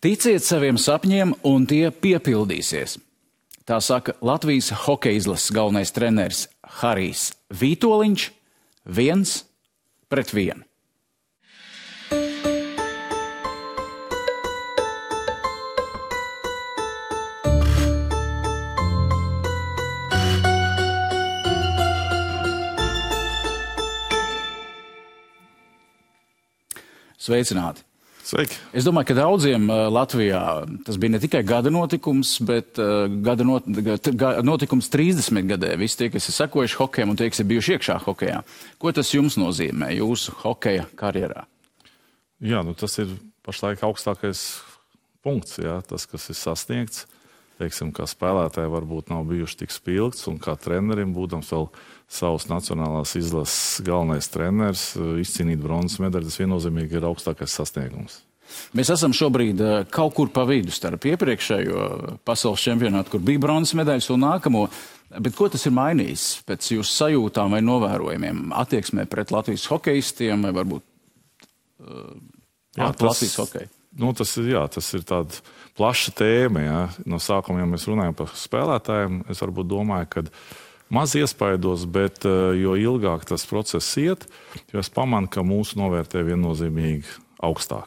Ticiet saviem sapņiem, un tie piepildīsies. Tā saka Latvijas hokeja izlases galvenais treneris Harijs Vītoliņš 1-1. Sveicināti! Sveiki! Es domāju, ka daudziem Latvijā tas bija ne tikai gada notikums, bet notikums 30 gadē. Visi tie, kas ir sekojuši hokejam un tie, kas ir bijuši iekšā hokejā. Ko tas jums nozīmē jūsu hokeja karjerā? Jā, tas ir pašlaik augstākais punkts, jā, tas, kas ir sasniegts. Teiksim, kā spēlētāji varbūt nav bijuši tik spilgts, un kā trenerim, būdams vēl savas nacionālās izlases galvenais treneris, izcīnīt bronzas medaļu, tas viennozīmīgi ir augstākais sasniegums. Mēs esam šobrīd kaut kur pa vidu starp iepriekšējo pasaules čempionātu, kur bija bronzas medaļas, un nākamo. Bet ko tas ir mainījis pēc jūsu sajūtām vai novērojumiem attieksmē pret Latvijas hokejistiem vai varbūt Latvijas hokeju? Tas ir tāda plaša tēma. Jā. No sākuma, ja mēs runājam par spēlētājiem, es varbūt domāju, ka maz iespaidos, bet jo ilgāk tas process iet, jo es pamanu, ka mūsu novērtē viennozīmīgi augstāk.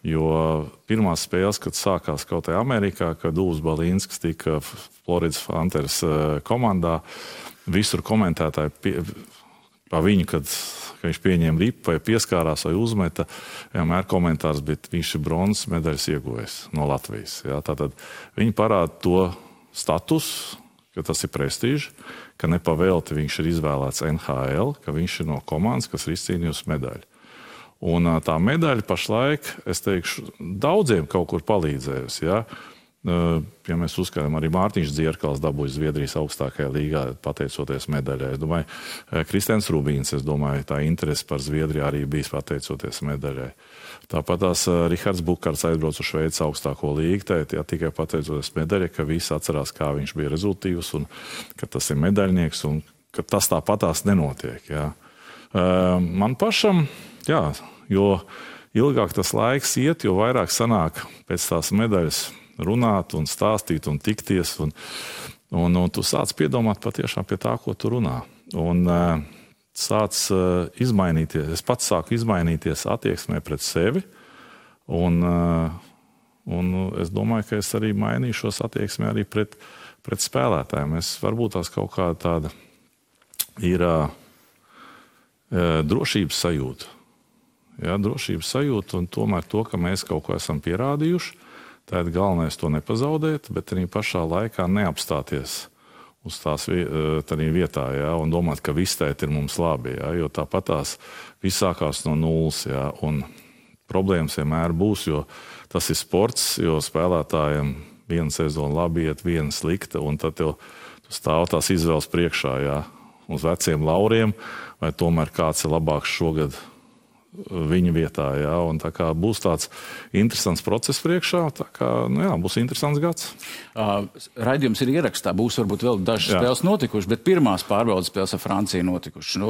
Jo pirmās spēles, kad sākās kaut kā Amerikā, kad Dūls Balīnskis tika Floridas Panthers komandā, visur komentētāji pa viņu, kad viņš pieņēma ripu vai pieskārās vai uzmeta, vienmēr komentārs, bet viņš ir bronzas medaļas ieguvējis no Latvijas. Jā, tātad viņi parāda to statusu, ka tas ir prestiži, ka nepavēlti viņš ir izvēlēts NHL, ka viņš ir no komandas, kas ir izcīnījusi medaļu. Un tā medaļa pašlaik, es teikšu, daudziem kaut kur palīdzējusi. Ja? Ja mēs uzskatām, arī Mārtiņš Dzierkals dabūja Zviedrijas augstākajā līgā, pateicoties medaļai. Es domāju, Kristians Rubīns, tā interese par Zviedriju arī bijis pateicoties medaļai. Tāpat tās Rihards Bukārts aizbrauc uz Šveices augstāko līgu, tikai pateicoties medaļai, ka visi atcerās, kā viņš bija rezultīvs un ka tas ir medaļnieks un ka tas tāpatās nenotiek. Jā. Man pašam, jā, jo ilgāk tas laiks iet, jo vairāk sanāk pēc tās medaļas runāt un stāstīt un tikties, un tu sāc piedomāt patiešām pie tā, ko tu runā. Un sāc izmainīties, es pats sāku izmainīties attieksmē pret sevi, un es domāju, ka es arī mainīšos attieksmē arī pret spēlētājiem. Varbūt tās kaut kā tāda ir drošības sajūta. Jā, drošības sajūta, un tomēr to, ka mēs kaut ko esam pierādījuši, tad galvenais to nepazaudēt, bet arī pašā laikā neapstāties uz tās vietā, jā, un domāt, ka viss tēt ir mums labi, jā, jo tāpat tās viss sākās no nulles, jā, un problēmas vienmēr būs, jo tas ir sports, jo spēlētājiem viena sezona labi iet, viena slikta, un tad tu stāv tās izvēles priekšā, jā, uz veciem lauriem, vai tomēr kāds ir labāks šogad viņa vietā, jā, un tā kā būs tāds interesants process priekšā, tā kā, būs interesants gads. Raidījums ir ierakstā, būs varbūt vēl dažas spēles notikušas, bet pirmās pārbaudas spēles ar Franciju notikušas.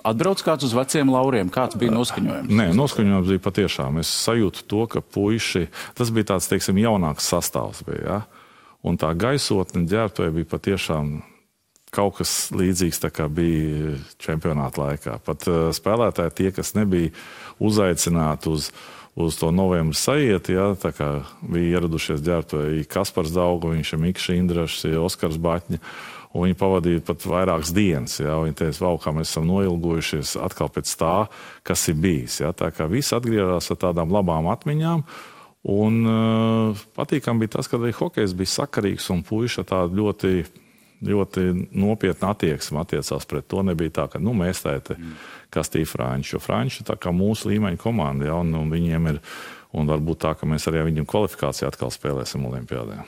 Atbrauc kāds uz veciem lauriem, kāds bija noskaņojums? Nē, noskaņojums bija patiešām. Es sajūtu to, ka puiši, tas bija tāds, teiksim, jaunāks sastāvs bija, jā, un tā gaisotne ģērbtuvē bija patiešām kaut kas līdzīgs, tā kā bija čempionāta laikā. Pat spēlētāji tie, kas nebija uzaicināti uz to novembra sajieti, jā, tā kā bija ieradušies ģērbtuvē Kaspars Daugoviņš, Mikls Indrašs, Oskars Baķņa, un viņi pavadīja pat vairākas dienas. Jā, viņi teica, vau, kā mēs esam noilgojušies atkal pēc tā, kas ir bijis. Jā, tā kā viss atgriezās ar tādām labām atmiņām, un patīkam bija tas, ka arī hokejs bija sakarīgs un puiši tādu ļoti nopietna attieksme attiecās pret to. Nebija tā, ka mēs kastīja Franči, jo Franči tā kā mūsu līmeņa komanda, ja, un viņiem ir, un varbūt tā, ka mēs arī viņam kvalifikāciju atkal spēlēsim Olimpiādē.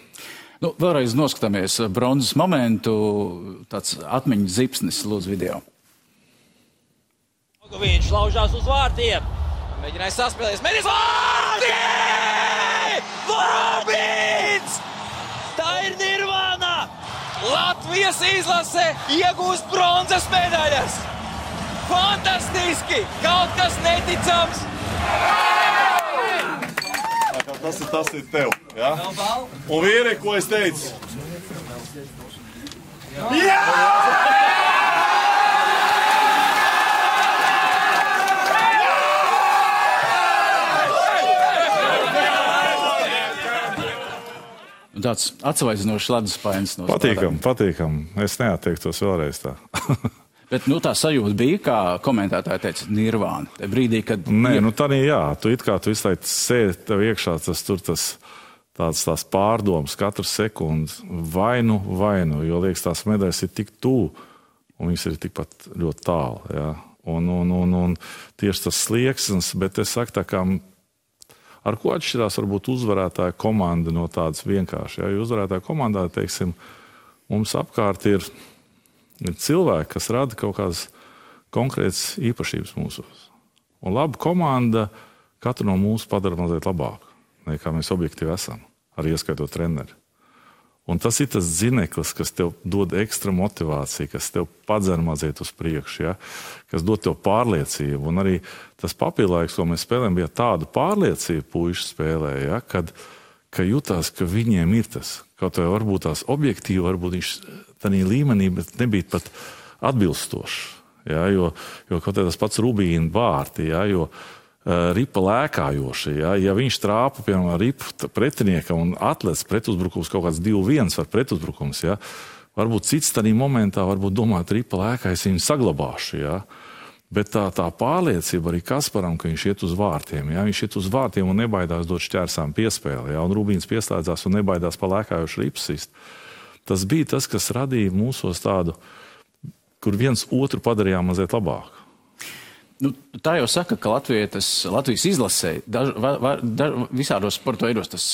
Vēlreiz noskatāmies bronzas momentu, tāds atmiņas zipsnis, lūdzu video. Viņš laužās uz vārtiem, mēģināja saspēlēs, vārti! Rubīns! Tā ir nirvāna! Latvijas izlase iegūst bronzas medaļas! Fantastiski! Kaut kas neticams! Tas ir tev. Ja? Un vīri, ko es teicu? Jā! Tāds atsvaidzinošs leduspainis. Patīkam. Es neatteiktos vēlreiz tā. Bet tā sajūta bija, kā komentētāji teica, nirvāna. Te brīdī, kad... Nē, tā jā. Tu visu laiku sēdi tev iekšā, tās pārdomas katru sekundi. Vainu, jo liekas, tās medaļas ir tik tuvu, un viņas ir tikpat ļoti tālu. Ja? Un tieši tas slieksnis, bet es saku tā kā... Ar ko atšķirās varbūt uzvarētāja komanda no tādas vienkārši. Ja? Jo uzvarētāja komandā, teiksim, mums apkārt ir cilvēki, kas rada kaut kādas konkrētas īpašības mūsos. Un laba komanda katru no mūsu padara mazliet labāku, nekā mēs objektīvi esam, arī ieskaitot treneri. Un tas ir tas zineklis, kas tev dod ekstra motivāciju, kas tev padzer mazliet uz priekšu, ja? Kas dod tev pārliecību. Un arī tas papildlaiks, ko mēs spēlējam, bija tāda pārliecība puiši spēlē, ja? Ka jutās, ka viņiem ir tas. Kaut vai varbūt tās objektīvi, varbūt viņš tādā līmenī, bet nebija pat atbilstošs. Ja? Jo kaut kā tas pats Rubīna vārti, ja? Jo ripa lēkājoši. Ja viņš trāpa, piemēram, ripu pretiniekam un atlec pretuzbrukums kaut kāds 2-1 var pretuzbrukums, ja? Varbūt cits tādā momentā varbūt domāt, ripa lēkā, es viņu saglabāšu. Ja? Bet tā pārliecība arī Kasparam, ka viņš iet uz vārtiem. Ja? Viņš iet uz vārtiem un nebaidās dot šķērsām piespēli. Ja? Un Rubīns pieslēdzās un nebaidās pa lēkājošu ripsist. Tas bija tas, kas radīja mūsos tādu, kur viens otru padarījām mazliet labāku. Tā jau saka, ka Latvijas izlasē visādos sporta veidos tas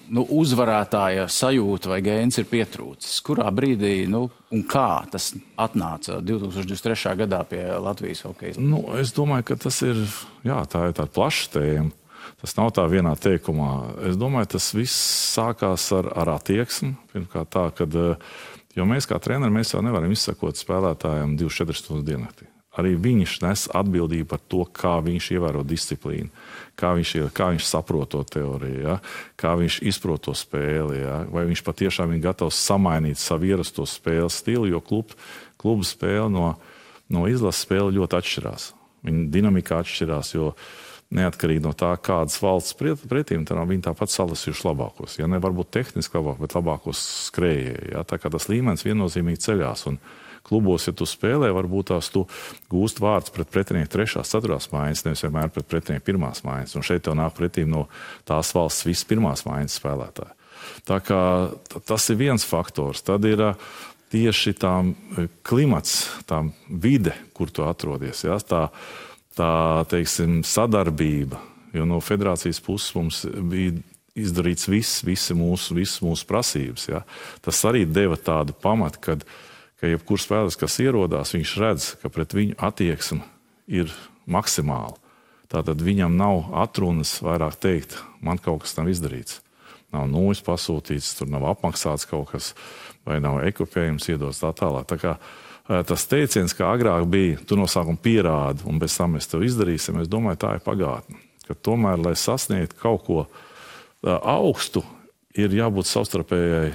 uzvarētāja sajūta vai gēns ir pietrūcis. Kurā brīdī un kā tas atnāca 2023. gadā pie Latvijas hokeja? Es domāju, ka tas ir, tā ir tāda plaša tēma. Tas nav tā vienā teikumā. Es domāju, tas viss sākās ar attieksmi. Pirmkārt tā, jo mēs kā treneri, mēs jau nevaram izsakot spēlētājiem 24 stundas diennaktī. Arī viņš nes atbildību par to, kā viņš ievēro disciplīnu, kā viņš saprot to teoriju, ja? Kā viņš izprot to spēli, ja? Vai viņš patiešām ir gatavs samainīt savu ierasto spēles stilu, jo klubu spēle no izlases spēle ļoti atšķirās. Viņa dinamika atšķirās, jo neatkarīgi no tā, kādas valsts pretīm, viņi tāpat salasījuši labākos. Ja? Ne varbūt tehniski labāk, bet labākos skrējēji. Ja? Tā kā tas līmenis viennozīmīgi ceļās. Un klubos, ja tu spēlē, varbūt tās tu gūst vārds pret pretinieku 3., 4. mājas, nevis vienmēr pret pretinieku 1. mājas. Un šeit tev nāk pretīm no tās valsts viss 1. mājas spēlētāji. Tā kā tas ir viens faktors. Tad ir tieši tā klimats, tā vide, kur tu atrodies. Ja? Tā teiksim, sadarbība. Jo no federācijas puses mums bija izdarīts visas mūsu prasības. Ja? Tas arī deva tādu pamatu, ka jebkurš spēlētājs, kas ierodās, viņš redz, ka pret viņu attieksme ir maksimāla. Tātad viņam nav atrunas vairāk teikt, man kaut kas nav izdarīts. Nav nūjas pasūtīts, tur nav apmaksāts kaut kas, vai nav ekipējums iedots tā tālāk. Tā kā tas teiciens, kā agrāk bija, tu no sākuma pierādi, un bez tam mēs tev izdarīsim, es domāju, tā ir pagātne. Ka tomēr, lai sasniegtu kaut ko augstu, ir jābūt savstarpējai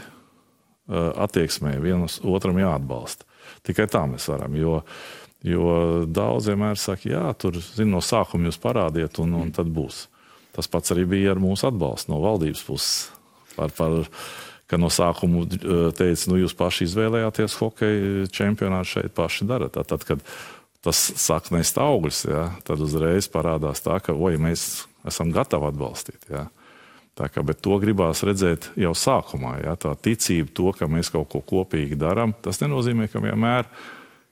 attieksmē, vienam otram jāatbalsta. Tikai tā mēs varam, jo daudz vienmēr saka, tur, no sākuma jūs parādiet, un tad būs. Tas pats arī bija ar mūsu atbalstu no valdības puses. Ka no sākuma teica, jūs paši izvēlējāties hokeja čempionātu šeit, paši darat. Tad, kad tas sāk nest augļus, tad uzreiz parādās tā, ka mēs esam gatavi atbalstīt. Bet to gribās redzēt jau sākumā. Ja? Tā ticība to, ka mēs kaut ko kopīgi darām, tas nenozīmē, ka vienmēr,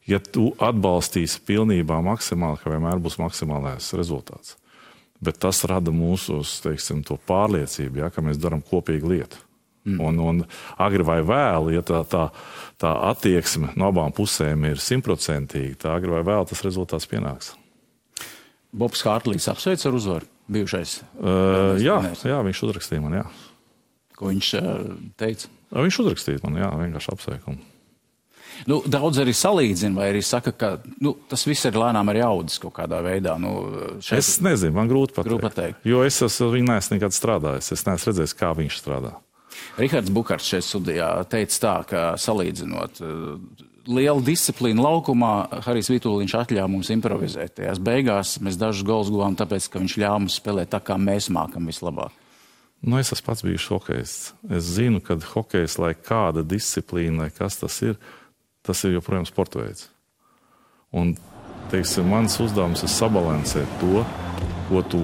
ja tu atbalstīsi pilnībā maksimāli, ka vienmēr būs maksimālais rezultāts. Bet tas rada mūsos, teiksim, to pārliecību, ja? Ka mēs darām kopīgu lietu. Un agri vai vēlu, ja tā attieksme no abām pusēm ir 100%, tā agri vai vēlu tas rezultāts pienāks. Bobs Hārtlīgs apsveic ar uzvaru, bijušais? Jā, viņš uzrakstīja man, jā. Ko viņš teica? Viņš uzrakstīja man, jā, vienkārši apsveikumu. Daudz arī salīdzina, vai arī saka, ka tas viss ir lēnām arī audzis kaut kādā veidā. Es nezinu, man grūti pateikt. Jo es viņu neesmu nekad strādājis. Es neesmu redzējis, kā viņš strādā. Rihards Bukarts šeit studijā teica tā, ka salīdzinot lielu disciplīnu laukumā, Harijs Vituliņš atļāva mums improvizēt. Tajās beigās mēs dažus gols guvām, tāpēc, ka viņš ļāva mums spēlēt tā, kā mēs mākam vislabāk. Es esmu pats bijis hokejists. Es zinu, ka hokejs, lai kāda disciplīna, lai kas tas ir joprojām sporta veids. Un, teiksim, mans uzdevums ir sabalansēt to, ko tu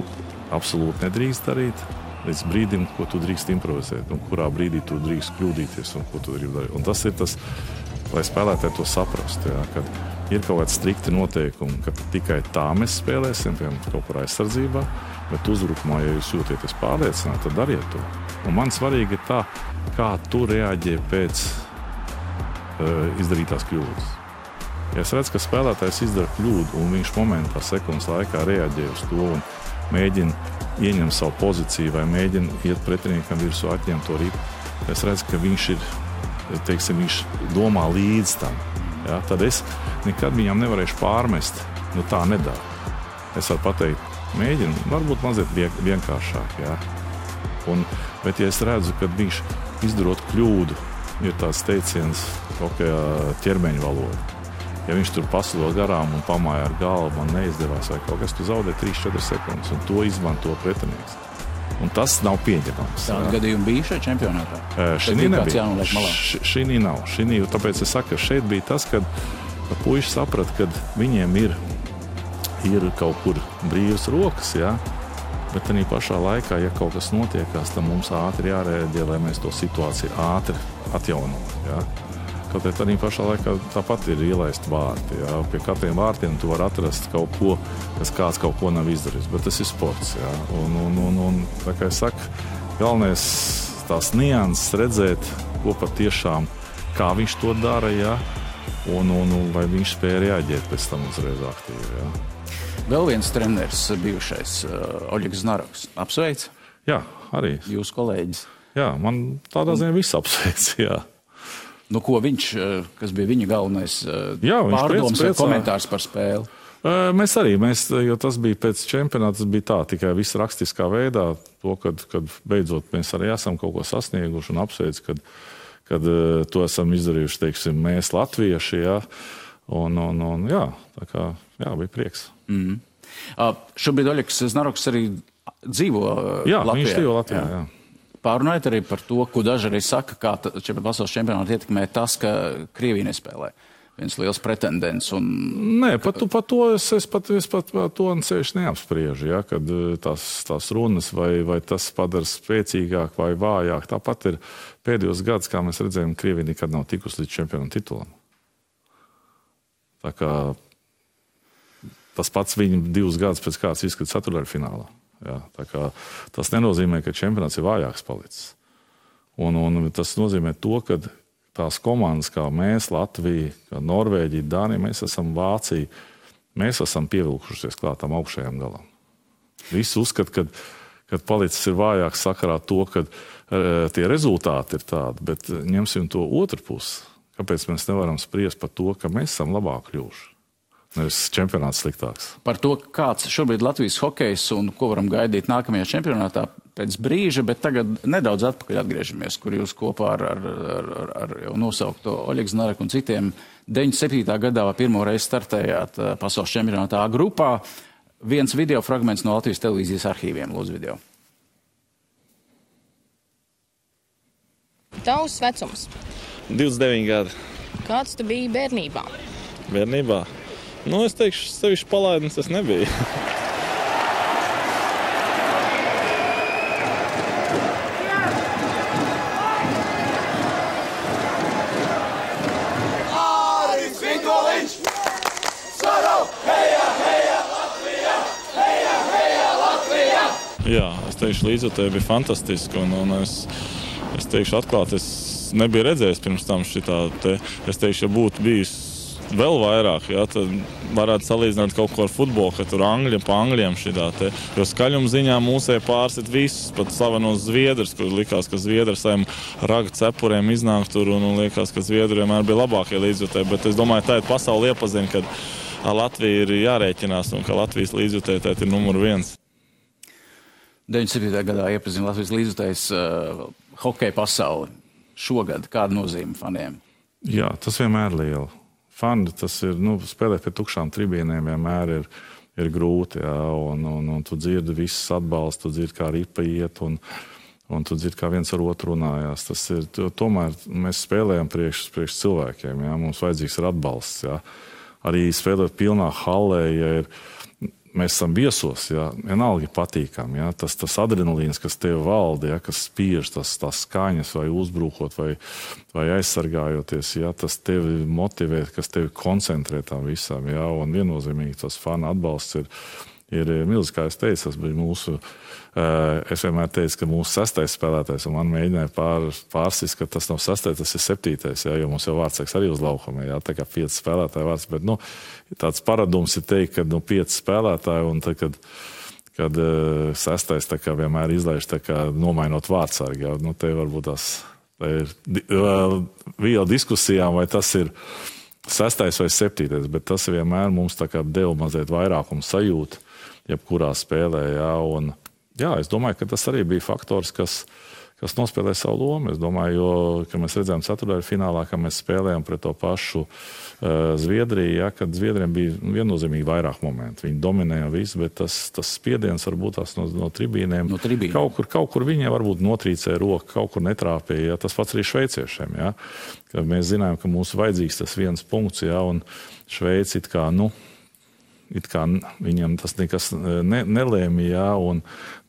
absolūti nedrīkst darīt, līdz brīdim, ko tu drīkst improvizēt, un kurā brīdī tu drīkst kļūdīties, un ko tu gribi darīt. Un tas ir tas, lai spēlētāji to saprastu, kad ir kaut kāds strikti noteikumi, ka tikai tā mēs spēlēsim, piemēram, kaut kur aizsardzībā, bet uzbrukumā, ja jūs jūtieties pārliecināti, tad dariet to. Un man svarīgi ir tā, kā tu reaģē pēc izdarītās kļūdas. Ja es redzu, ka spēlētājs izdara kļūdu, un viņš momentā, sekundes laikā reaģē uz to un mēģina ieņemt savu pozīciju vai mēģina iet pretiniekam virsū, atņemt to ripu, es redzu, ka viņš ir, teiksim, viņš domā līdz tam. Ja? Tad es nekad viņam nevarēšu pārmest, tā nedara. Es varu pateikt, mēģinu, varbūt mazliet vienkāršāk. Ja? Bet ja es redzu, ka viņš izdarot kļūdu, ir tāds teiciens ķermeņa valoda. Ja viņš tur pasilo garām un pamāja ar galvu, man neizdevās vai kaut kas, tu zaudē 3-4 sekundes, un to izmanto pretinieks. Un tas nav pieņemams. Tāda gadījuma bija šajā čempionātā? Šī nebija. Šī nav. Tāpēc es saku, ka šeit bija tas, kad puiši saprata, ka viņiem ir kaut kur brīvas rokas, ja? Bet arī pašā laikā, ja kaut kas notiekās, tad mums ātri jārēģē, lai mēs to situāciju ātri atjaunot. Ja? Kaut arī pašā laikā tāpat ir ielaist vārti. Ja? Pie katriem vārtiem tu vari atrast kaut ko, kas kāds kaut ko nav izdarījis, bet tas ir sports. Ja? Un tā kā es saku, galvenais tās nianses redzēt, ko patiešām, kā viņš to dara, ja? un vai viņš spēja reaģēt pēc tam uzreiz aktīvi. Ja? Vēl viens treneris bijušais, Oļegs Znaroks. Apsveic? Jā, arī. Jūsu kolēģis? Jā, man tādā ziņā viss apsveic, jā. Ko viņš, kas bija viņa galvenais pārdoms vai komentārs par spēli? Mēs arī, jo tas bija pēc čempionāta, tas bija tā, tikai viss rakstiskā veidā, to, kad beidzot mēs arī esam kaut ko sasnieguši un apsveic, kad to esam izdarījuši, teiksim, mēs latvieši, jā. Un jā, tā kā, jā, bija prieks. Šobrīd Oļegs Znaroks arī dzīvo Latvijā. Jā, viņš dzīvo Latvijā, jā. Pārunājot arī par to, ko daži arī saka, kā pasaules čempionāti ietekmē tas, ka Krievija nespēlē. Viens liels pretendents. Nē, par to es to ceļš neapspriežu, ja, kad tās runas vai tas padara spēcīgāk vai vājāk. Tāpat ir pēdējos gadus, kā mēs redzējām, Krievija nekad nav tikusi līdz čempionu titulam. Tā kā tas pats viņa 2 gadus pēc kāds izskats ceturtdaļfinālā. Ja, tā kā tas nenozīmē, ka čempionāts ir vājāks palicis. Un tas nozīmē to, ka tās komandas, kā mēs, Latvija, kā Norvēģija, Dānija, mēs esam Vācija, mēs esam pievilkušies klāt tam augšējām galam. Visi uzskata, ka palicis ir vājāks sakarā to, ka tie rezultāti ir tādi, bet ņemsim to otru pusi. Kāpēc mēs nevaram spriest par to, ka mēs esam labāk kļuvuši? Nevis čempionāts sliktāks. Par to, kāds šobrīd Latvijas hokejs un ko varam gaidīt nākamajā čempionātā pēc brīža, bet tagad nedaudz atpakaļ atgriežamies, kur jūs kopā ar jau nosaukto Oļegu Znaroku un citiem 97. gadā pirmo reizi startējāt pasaules čempionātā A grupā. Viens video fragments no Latvijas televīzijas arhīviem, lūdzu video. Tavs vecums? 29 gadi. Kāds tu biji bērnībā? Bērnībā? Es teikšu, sevišķi palaidnis tas nebija. Harijs Vituliņš! Saro! Heja, heja, Latvija! Heja, heja, Latvija! Jā, es teikšu, līdzjūtība bija fantastiska, un es teikšu atklāt, es nebiju redzējis pirms tam šitā te. Es teikšu, ja būtu bijis vēl vairāk, jā, tad varētu salīdzināt kaut ko ar futbolu, ka tur angļi pa angļiem šitā te. Jo skaļuma ziņā mūsē pārsit visus, pat slavenos Zviedrus, kur likās, ka Zviedri saviem raga cepuriem iznāk tur un liekas, ka Zviedri vienmēr bija labākie līdzjutēji. Bet es domāju, tā ir pasauli iepazina, kad ar Latviju ir jārēķinās un ka Latvijas līdzjutēji tā ir numur 1. 97. gadā iepazina Latvijas līdzjutējs hokeja pasauli. Šogad kāda nozīme faniem? Jā, tas vienmēr ir liela. Fani, tas ir, spēlēt pie tukšām tribīnēm vienmēr ir grūti, jā, un tu dzirdi visus atbalstu, tu dzirdi, kā ripa iet, un tu dzirdi, kā viens ar otru runājās. Tas ir, tomēr mēs spēlējam priekš cilvēkiem, jā, mums vajadzīgs ir atbalsts, jā. Arī spēlēt pilnā hallē, ja mēs esam viesos, jā, vienalga patīkami, jā, tas adrenalīns, kas tev valda, jā, kas spiež, tās skaņas vai uzbrukot vai aizsargājoties, jā, tas tevi motivē, kas tevi koncentrē tam visam, jā, un viennozīmīgi tas fana atbalsts ir milzīgs, kā es teicu, tas bija mūsu, es vienmēr teicu, ka mūsu 6. spēlētājs, un man mēģināja pārsist, ka tas nav 6., tas ir 7., jā, jo mums jau vārdsargs arī uz laukuma, jā, tā kā 5 spēlētāji vārds, bet, tāds paradums ir teikt, ka 5 spēlētāji, un tad, kad 6. tā kā vienmēr izlaiž, tā kā nomainot vārdsargu, jā, te varbūt tā ir viela diskusijām, vai tas ir 6. vai 7., bet tas vienmēr mums tā kā deva mazliet vairākumu sajūtu, jebkurā spēlē, jā, un jā, es domāju, ka tas arī bija faktors, kas nospēlē savu lomu. Es domāju, jo, ka mēs redzējām ceturtajā finālā, ka mēs spēlējām pret to pašu Zviedriju, ja, kad Zviedriem bija viennozīmīgi vairāk momentu. Viņi dominēja visu, bet tas spiediens varbūt tās no tribīnēm. No tribīnēm. Kaut kur viņiem varbūt notrīcēja roku, kaut kur netrāpēja. Ja, tas pats arī šveiciešiem. Ja, kad mēs zinājām, ka mums vajadzīgs tas viens punkts, ja, un Šveici it kā viņam tas nekas nelēma, jā,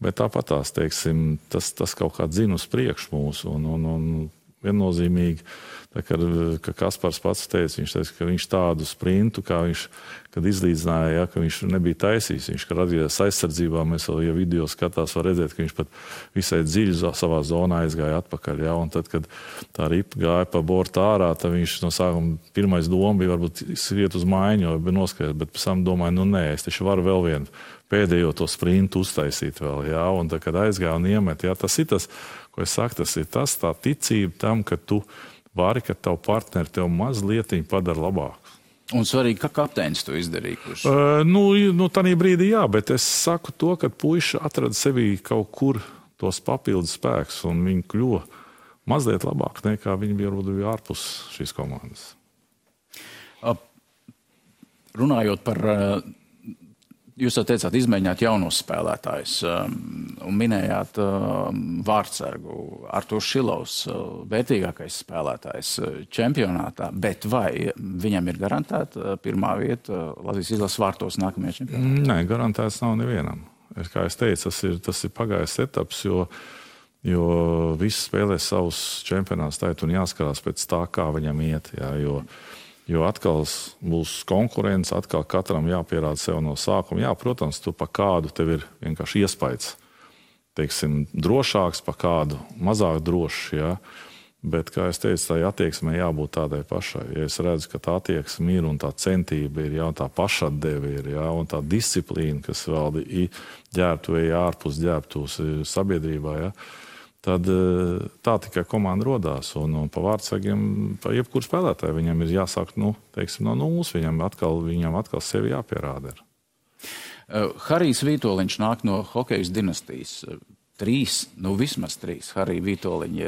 bet tāpatās, teiksim, tas kaut kā dzina uz priekšu mūsu, un viennozīmīgi, tā kā Kaspars pats teica, viņš teica, ka viņš tādu sprintu, kā viņš, kad izlīdzināja, jā, ka viņš nebija taisījis, viņš, kad atgriezās aizsardzībā, mēs vēl, ja video skatās, var redzēt, ka viņš pat visai dziļi savā zonā aizgāja atpakaļ, jā, un tad, kad tā ripa gāja pa bortu ārā, tad viņš no sākuma pirmais doma bija varbūt skriet uz maiņu, vai bija noskaidrs, bet pēc tam domāju, nē, es taču varu vēl vienu pēdējo to sprintu uztaisīt vēl, jā, un tad, kad aizgāja un iemet, jā, tas ir tas, ko es saku, tas ir tas, tā ticība tam, ka tu vari, ka tavu partneri tev mazlietiņi padara labāk. Un svarīgi, ka kapteinis to izdarīja. Kurš... Tanī brīdī jā, bet es saku to, ka puiši atrada sevī kaut kur tos papildus spēkus, un viņi kļuva mazliet labāk, nekā viņi bija ārpus šīs komandas. Runājot par... Jūs jau teicāt, izmēģināt jaunos spēlētājus un minējāt vārdsargu Artūrs Šilovs, vērtīgākais spēlētājs čempionātā, bet vai viņam ir garantēta pirmā vieta Latvijas izlases vārtos nākamajā čempionātā? Nē, garantēts nav nevienam. Kā es teicu, tas ir pagājis etaps, jo visi spēlē savus čempionātus taitu un jāskarās pēc tā, kā viņam iet, jā, jo atkal būs konkurence, atkal katram jāpierāda sev no sākuma. Jā, protams, tu pa kādu tev ir vienkārši iespējas, teiksim, drošāks, pa kādu mazāk drošs, jā. Bet, kā es teicu, tā attieksmē jābūt tādai pašai. Ja es redzu, ka tā attieksme ir un tā centība ir, jā, un tā pašatdeve ir, jā, un tā disciplīna, kas valda ģērbtuvē, ārpus ģērbtuvs sabiedrībā, jā, tad tā tikai komanda rodās. Un pa vārdsargiem, pa jebkuru spēlētāju, viņam ir jāsāk, teiksim, no nulles, viņam atkal sevi jāpierāda ir. Harijs Vītoliņš nāk no hokejas dinastijas. 3, vismaz 3 Harija Vītoliņi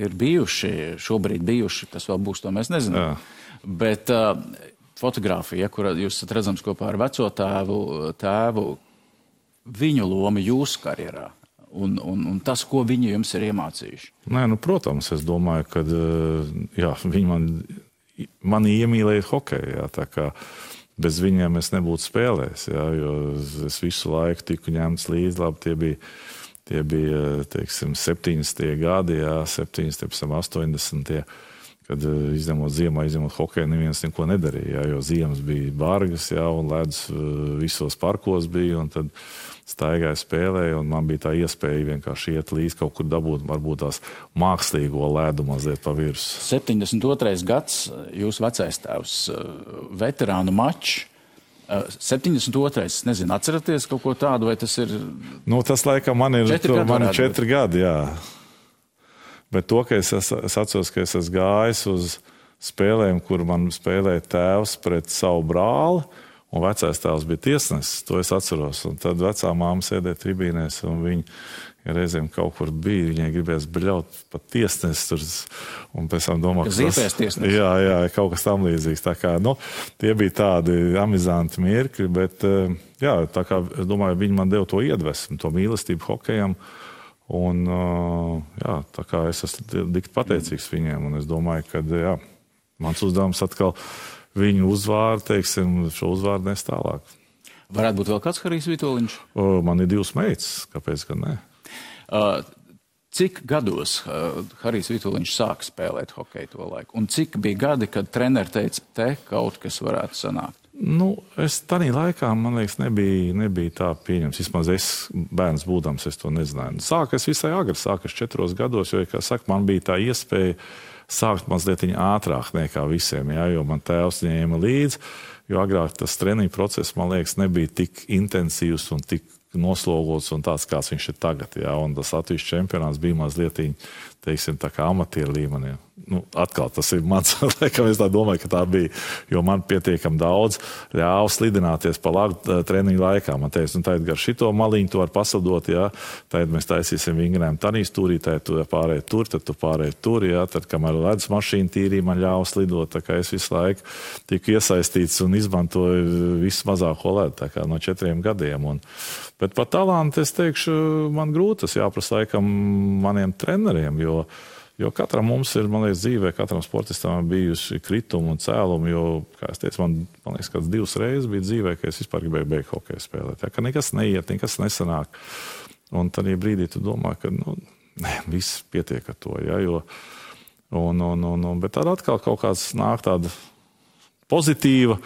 ir bijuši, šobrīd bijuši, kas vēl būs, to mēs nezinām. Jā. Bet fotografija, kur jūs esat redzams kopā ar veco tēvu, viņu loma jūsu karjerā. Un tas, ko viņi jums ir iemācījuši? Nē, protams, es domāju, ka jā, viņi mani iemīlēja hokeju, jā, tā kā bez viņiem es nebūtu spēlējis, jā, jo es visu laiku tiku ņemts līdzi, labi, tie bija teiksim, 70. gadi, jā, 70, 80. kad izņemot ziemā, izņemot hokeju, neviens neko nedarīja, jā, jo ziemas bija bargas, jā, un ledus visos parkos bija, un tad staigāja spēlēja, un man bija tā iespēja vienkārši iet līdz kaut kur dabūt, varbūt tās mākslīgo ledu mazliet pa virsmu. 72. gads, jūs vecais tēvs, veterānu mačs. 72. Es nezinu, atceraties kaut ko tādu, vai tas ir... Nu, tas laikam man ir 4 gadi, jā. Bet to, ka es atceros, ka es esmu gājis uz spēlēm, kur man spēlēja tēvs pret savu brāli, un vecais tēvs bija tiesnesis, to es atceros. Un tad vecā māma sēdēja tribīnēs, un viņi reizēm kaut kur bija, viņai gribēs bļaut pat tiesnesis tur, un pēc tam domā, ka ziepēs tiesnesis. Jā, kaut kas tam līdzīgs. Tā kā, nu, tie bija tādi amizanti mirkļi, bet, jā, tā kā, es domāju, viņi man deva to iedvesmu, to mīlestību hokejam, un, jā, tā kā es esmu dikti pateicīgs viņiem, un es domāju, ka, jā, mans uzdevums atkal viņu uzvārdu, teiksim, šo uzvārdu nes tālāk. Varētu būt vēl kāds Harijs Vitoļņš? Man ir 2 meitas, kāpēc gan ne? Cik gados Harijs Vitoļņš sāka spēlēt hokeju to laiku? Un cik bija gadi, kad treneri teica, te kaut kas varētu sanākt? Nu, es tādā laikā, man liekas, nebija tā pieņems. Vismaz es, bērns būdams, es to nezināju. Sākas visai agri, sākas 4 gados, jo, kā saka, man bija tā iespēja sākt mazliet ātrāk nekā visiem, jā, jo man tēvs ņēma līdzi, jo agrāk tas treniņu process, man liekas, nebija tik intensīvs un tik noslogots un tāds, kāds viņš ir tagad, jā, un tas Latvijas čempionāts bija mazliet, teiksim, tā kā amatieru līmenī. Nu, atkal tas ir mans, laikam es tā domāju, ka tā bija, jo man pietiekam daudz ļāva slidināties pa lagu treniņu laikā. Man teica, nu, tagad gar šito maliņu tu var paslidot, jā, tagad mēs taisīsim vingrinājumu tanī stūrī, tagad tu pārēji tur, tad tu pārēji tur, jā, tad, kamēr ledus mašīna tīrī, man ļāva slidot, tā kā es visu laiku tiku iesaistīts un izmantoju visu mazāko ledu, tā kā no 4 gadiem. Bet par talantu es teikšu, man grūti tas jāprasa laikam maniem treneriem, jo katram mums ir, man liekas, dzīvē, katram sportistam bijusi kritumi un cēlumi, jo, kā es teicu, man liekas, kāds 2 reizes bija dzīvē, ka es vispār gribēju beigt hokeju spēlēt. Ja, ka nekas neiet, nekas nesanāk. Un tādā brīdī tu domā, ka, nu, viss pietiek ar to, ja, jo, bet tad atkal kaut kāds nāk tāda pozitīvs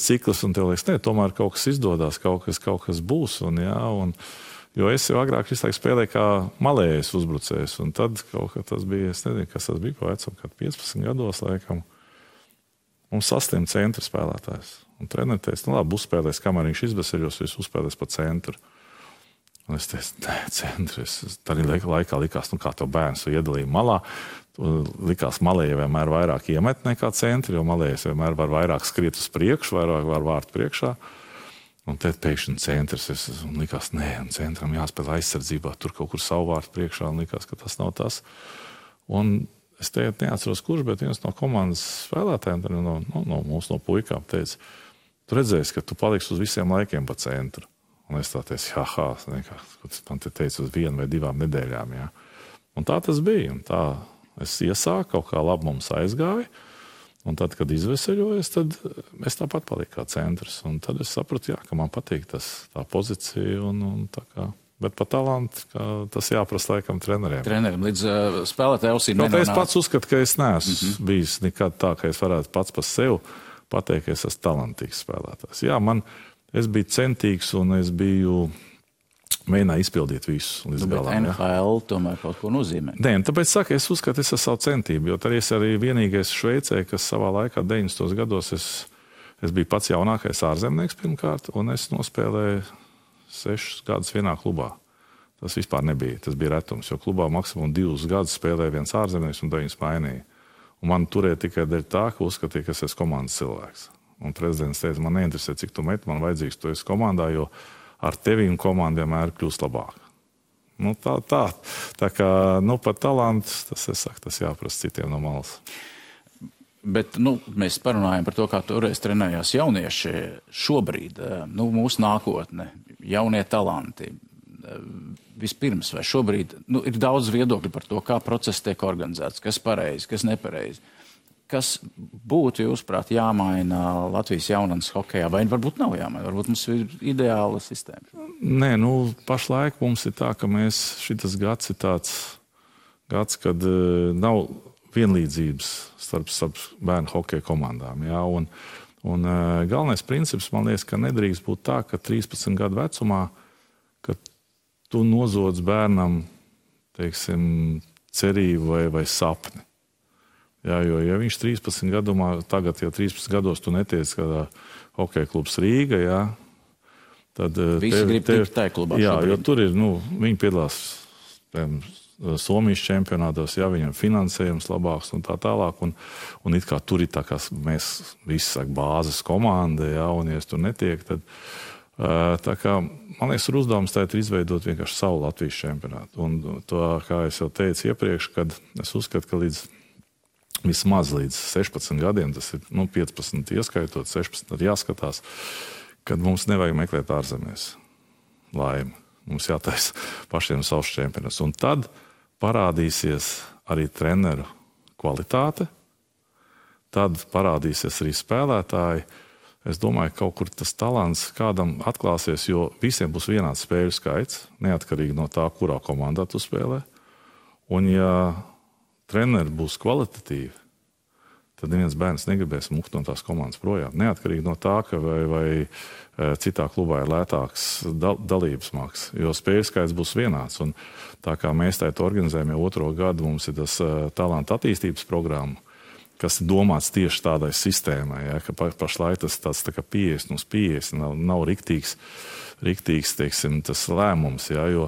cikls, un tev liekas, ne, tomēr kaut kas izdodas, kaut kas būs, un jā, jo es jau agrāk visu laiku spēlēju kā malējais uzbrucējs, un tad kaut kā tas bija, es nezinu, kas tas bija, pa vecam, kad 15 gados, laikam, mums saslim centra spēlētājs. Un treneris teica, nu labi, uzspēlēs, kamēr viņš izbeseļos, viņš uzspēlēs pa centru. Un es teicu, nē, centrs. Tad laikā likās, nu kā tev bērns iedalīja malā, likās malēja vienmēr vairāk iemet nekā centri, jo malējas vienmēr var vairāk skriet uz priekšu, vairāk var vārt priekšā. Un tad pēkšņi centrs, un likās, nē, un centram jāspēlē aizsardzībā, tur kaut kur savu vārtu priekšā, un likās, ka tas nav tas. Un es neatceros, kurš, bet viens no komandas spēlētājiem, no puikām teica, tu redzēsi, ka tu paliksi uz visiem laikiem pa centru. Un es tā teicu, man te teica uz 1 vai 2 nedēļām, jā. Un tā tas bija, un tā es iesāku, kaut kā labi mums aizgāja. Un tad, kad izveseļojos, tad es tāpat paliku kā centrs. Un tad es sapratu, jā, ka man patīk tā pozīcija. Un tā kā. Bet par talantu tas jāprasa laikam treneriem. Treneriem līdz spēlētāju ausīm nenonāk. Es pats uzskatu, ka es neesmu bijis nekad tā, ka es varētu pats par sevi pateikt, ka es esmu talantīgs spēlētājs. Jā, es biju centīgs un es biju... mēģināju izpildīt visu līdz galam. Bet NHL tomēr kaut ko nozīmē. Nē, tāpēc saka, es uzskatu, es esmu savu centību, jo tad es arī vienīgais Šveicē, kas savā laikā 90. gados es biju pats jaunākais ārzemnieks pirmkārt, un es nospēlēju 6 gadus vienā klubā. Tas vispār nebija, tas bija retums, jo klubā maksimum 2 gadus spēlēja viens ārzemnieks un 9 mainīja. Un man turēja tikai dēļ tā, ka uzskatīja, ka es esmu komandas cilvēks. Un prezidents teica, man neinteresē, cik tu met, man vajadzīgs, tu esi komandā, jo ar tevi un komandu vienmēr kļūst labāk. Nu, tā kā, nu, par talantu, tas jāprasa citiem no malas. Bet, nu, mēs parunājam par to, kā toreiz trenējās jaunieši. Šobrīd, nu, mūsu nākotne, jaunie talanti. Vispirms, vai šobrīd, nu, ir daudz viedokļu par to, kā process tiek organizēts, kas pareizi, kas nepareizi. Kas būtu, jūsuprāt, jāmaina Latvijas jaunatnes hokejā, vai varbūt nav jāmaina, varbūt mums ir ideāla sistēma? Nē, nu, pašlaik mums ir tā, ka šitas gads ir tāds gads, kad nav vienlīdzības starp bērnu hokeja komandām. Jā, un galvenais princips, man liekas, ka nedrīkst būt tā, ka 13 gadu vecumā, ka tu nozodz bērnam, teiksim, cerību vai sapni. Jā, jo, ja viņš 13 gadumā, tagad, ja 13 gados tu netiec kādā hokeja klubs Rīga, jā, tad visi grib tikt tajā klubā. Jā, jo tur ir, viņi piedalās Somijas čempionātos, jā, viņam finansējums labāks un tā tālāk, un it kā tur ir tā kā mēs visi saka bāzes komanda, jā, un ja es tur netiek, tad tā kā, man liekas, ir uzdevums tagad izveidot vienkārši savu Latvijas čempionātu. Un to, kā es jau teicu iepriekš, kad es uzskatu, ka vismaz līdz 16 gadiem, tas ir 15 ieskaitot, 16 tad jāskatās, kad mums nevajag meklēt ārzemēs laimi. Mums jātaisa pašiem savs čempionāts. Un tad parādīsies arī treneru kvalitāte, tad parādīsies arī spēlētāji. Es domāju, ka kaut kur tas talants kādam atklāsies, jo visiem būs vienāds spēļu skaits, neatkarīgi no tā, kurā komandā tu spēlē. Un ja treneri būs kvalitatīvi, tad neviens bērns negribēs mukt no tās komandas projām. Neatkarīgi no tā, ka vai citā klubā ir lētāks dalības maksas, jo spēļu skaits būs vienāds. Un tā kā mēs tā organizējam jau 2. gadu, mums ir tas talanta attīstības programma, kas ir domāts tieši tādai sistēmai, ja, ka pašlaik tas tāds tā kā 50/50 nav riktīgs, teiksim, tas lēmums, ja, jo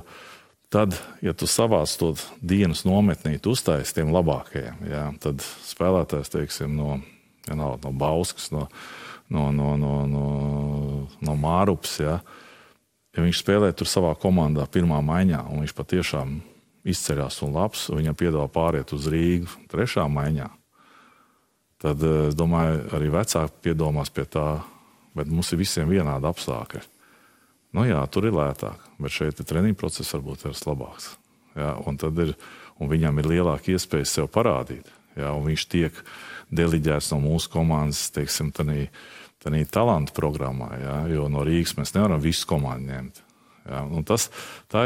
tad, ja tu savāc to dienas nometnīt uztais tiem labākajiem, ja, tad spēlētājs, teiksim, no Bauskas, no Mārups, ja viņš spēlē tur savā komandā pirmā maiņā, un viņš patiešām izceļās un labs, viņam piedāvā pāriet uz Rīgu 3. maiņā, tad, es domāju, arī vecāki piedomās pie tā, bet mums ir visiem vienādi apstākļi. Jā, tur ir lētāk, bet šeit treniņu process varbūt ir labāks. Jā, un viņam ir lielāka iespēja sev parādīt. Jā, un viņš tiek deliģēts no mūsu komandas, teiksim, tādā talantu programmā, jā, jo no Rīgas mēs nevaram visu komandu ņemt. Jā, un tā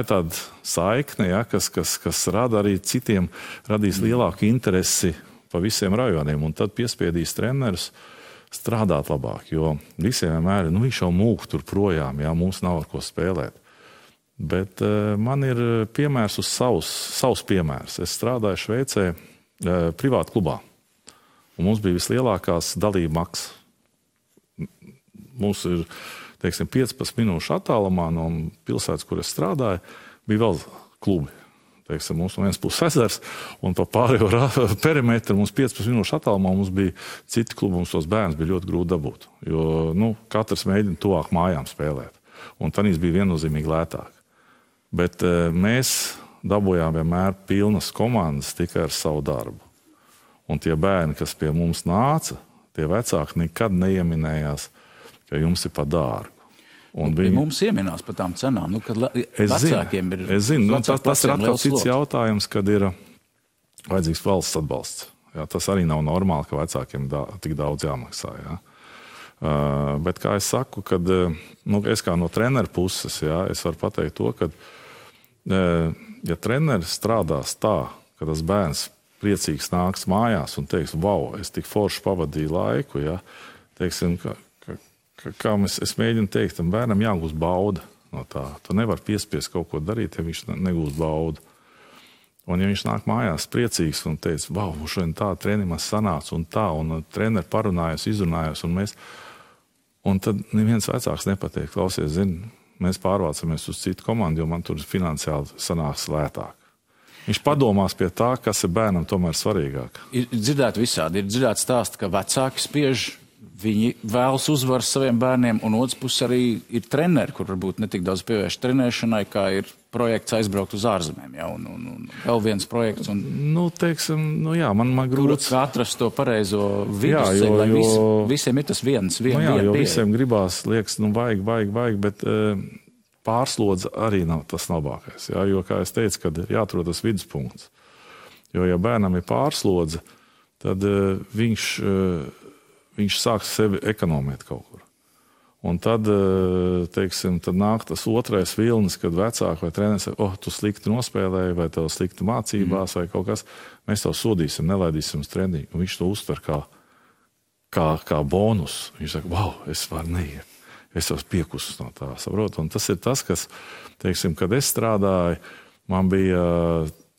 ir tāda saikne, jā, kas rada arī citiem, radīs lielāku interesi pa visiem rajoniem, un tad piespiedīs trenerus strādāt labāk, jo visiem vienmēr ir, viņš jau mūk tur projām, jā, mums nav ar ko spēlēt. Bet man ir piemērs uz savs piemērs. Es strādāju Šveicē privātu klubā, un mums bija vislielākās dalība maksas. Mums ir, teiksim, 15 minūšu attālumā no pilsētas, kur es strādāju, bija vēl klubi. Teiksim, mums no vienas puses ezers, un pa pārējo perimetru mums 15 minūšu attālumā mums bija citi klubi, mums tos bērns bija ļoti grūti dabūt, jo katrs mēģina tuvāk mājām spēlēt, un tanīs bija viennozīmīgi lētāk. Bet mēs dabūjām vienmēr pilnas komandas tikai ar savu darbu. Un tie bērni, kas pie mums nāca, tie vecāki nekad neieminējās, ka jums ir pa dārgu. Mums ieminās par tām cenām, kad vecākiem ir... Es zinu, tas ir atkal cits jautājums, kad ir vajadzīgs valsts atbalsts. Jā, tas arī nav normāli, ka vecākiem tik daudz jāmaksā. Jā. Bet, kā es saku, kad es kā no treneru puses, jā, es varu pateikt to, ka ja treneris strādās tā, ka tas bērns priecīgs nāks mājās un teiks, wow, es tik forši pavadīju laiku, jā, teiksim, kā es mēģinu teikt, tam bērnam jāgūst bauda no tā. Tu nevar piespiest kaut ko darīt, ja viņš negūst baudu. Un ja viņš nāk mājās priecīgs un teica, wow, šodien tā treniņš sanāca un treneri parunājās, izrunājās, un tad neviens vecāks nepateikt, klausies, mēs pārvācamies uz citu komandu, jo man tur finansiāli sanāks lētāk. Viņš padomās pie tā, kas ir bērnam tomēr svarīgāk. Ir dzirdēt visādi, ir dzirdēt stāst, ka vecāki spiež, viņi vēlas uzvaras saviem bērniem, un otrs puses arī ir treneri, kur varbūt netik daudz pievērš trenēšanai, kā ir projekts aizbraukt uz ārzemēm, jā, un vēl viens projekts. Teiksim, jā, man grūts... Kur atrast to pareizo vidusceļu, lai visiem ir tas viens jo visiem gribās, liekas, vajag, bet pārslodze arī nav tas labākais, jā, jo, kā es teicu, kad ir jāatrod tas viduspunkts. Jo, ja bērnam ir pārslodze, tad viņš sāk sevi ekonomēt kaut kur. Un tad, teiksim, tad nāk tas otrais vilnis, kad vecāki vai treneris saka, tu slikti nospēlēji, vai tev slikti mācībās, vai kaut kas. Mēs tev sodīsim, nelaidīsim uz treniņu. Un viņš to uztver kā bonus. Viņš saka, wow, es varu neiet. Es jau piekusus no tā, saprotu. Un tas ir tas, kas, teiksim, kad es strādāju, man bija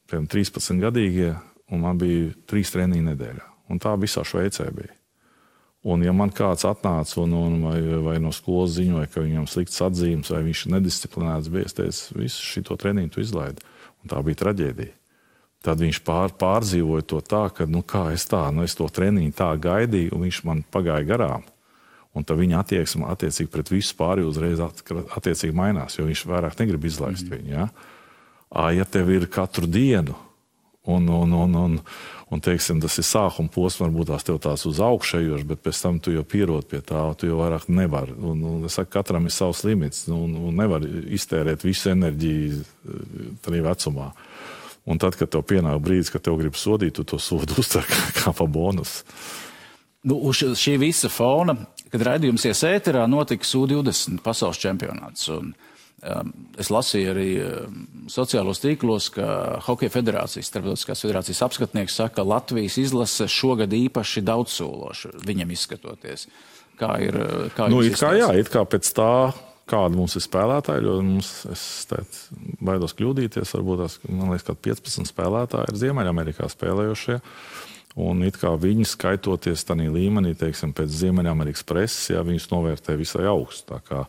13 gadīgie, un man bija 3 treniņi nedēļā. Un tā visā Šveicē bija. Un ja man kāds atnāca vai no skolas ziņoja, ka viņam slikts atzīmes, vai viņš nedisciplinēts bija, es teicu, visu šito treniņu tu izlaidi. Un tā bija traģēdija. Tad viņš pārdzīvoja to tā, ka, es to treniņu tā gaidīju, un viņš man pagāja garām. Un tad viņa attieksme attiecīgi pret visu pārējo uzreiz attiecīgi mainās, jo viņš vairāk negrib izlaist viņu. Ja? Ja tev ir katru dienu, un teiksim, tas ir sākuma posms, varbūt tās tev tās uz augšējoši, bet pēc tam tu jau pierod pie tā, tu jau vairāk nevari. Un es saku, katram ir savs limits, un nevar iztērēt visu enerģiju tajā vecumā. Un tad, kad tev pienāk brīdis, kad tev grib sodīt, tu to sodu uztver kā pa bonusu. Uz šī visa fona, kad raidījums ies ēterā, notika U20 pasaules čempionāts. Un es lasīju arī sociālos tīklos, ka Hokeja federācijas, starptautiskās federācijas apskatnieks saka, ka Latvijas izlase šogad īpaši daudzsološa viņam izskatoties. Kā ir it kā pēc tā, kāda mums ir spēlētāji, jo es baidos kļūdīties, varbūt man liekas, ka 15 spēlētāji ir Ziemeļamerikā spēlējošie. Un it kā viņi skaitoties tādā līmenī, teiksim, pēc Ziemeļamerikas preses, viņus novērtē visai augstu. Tā kā,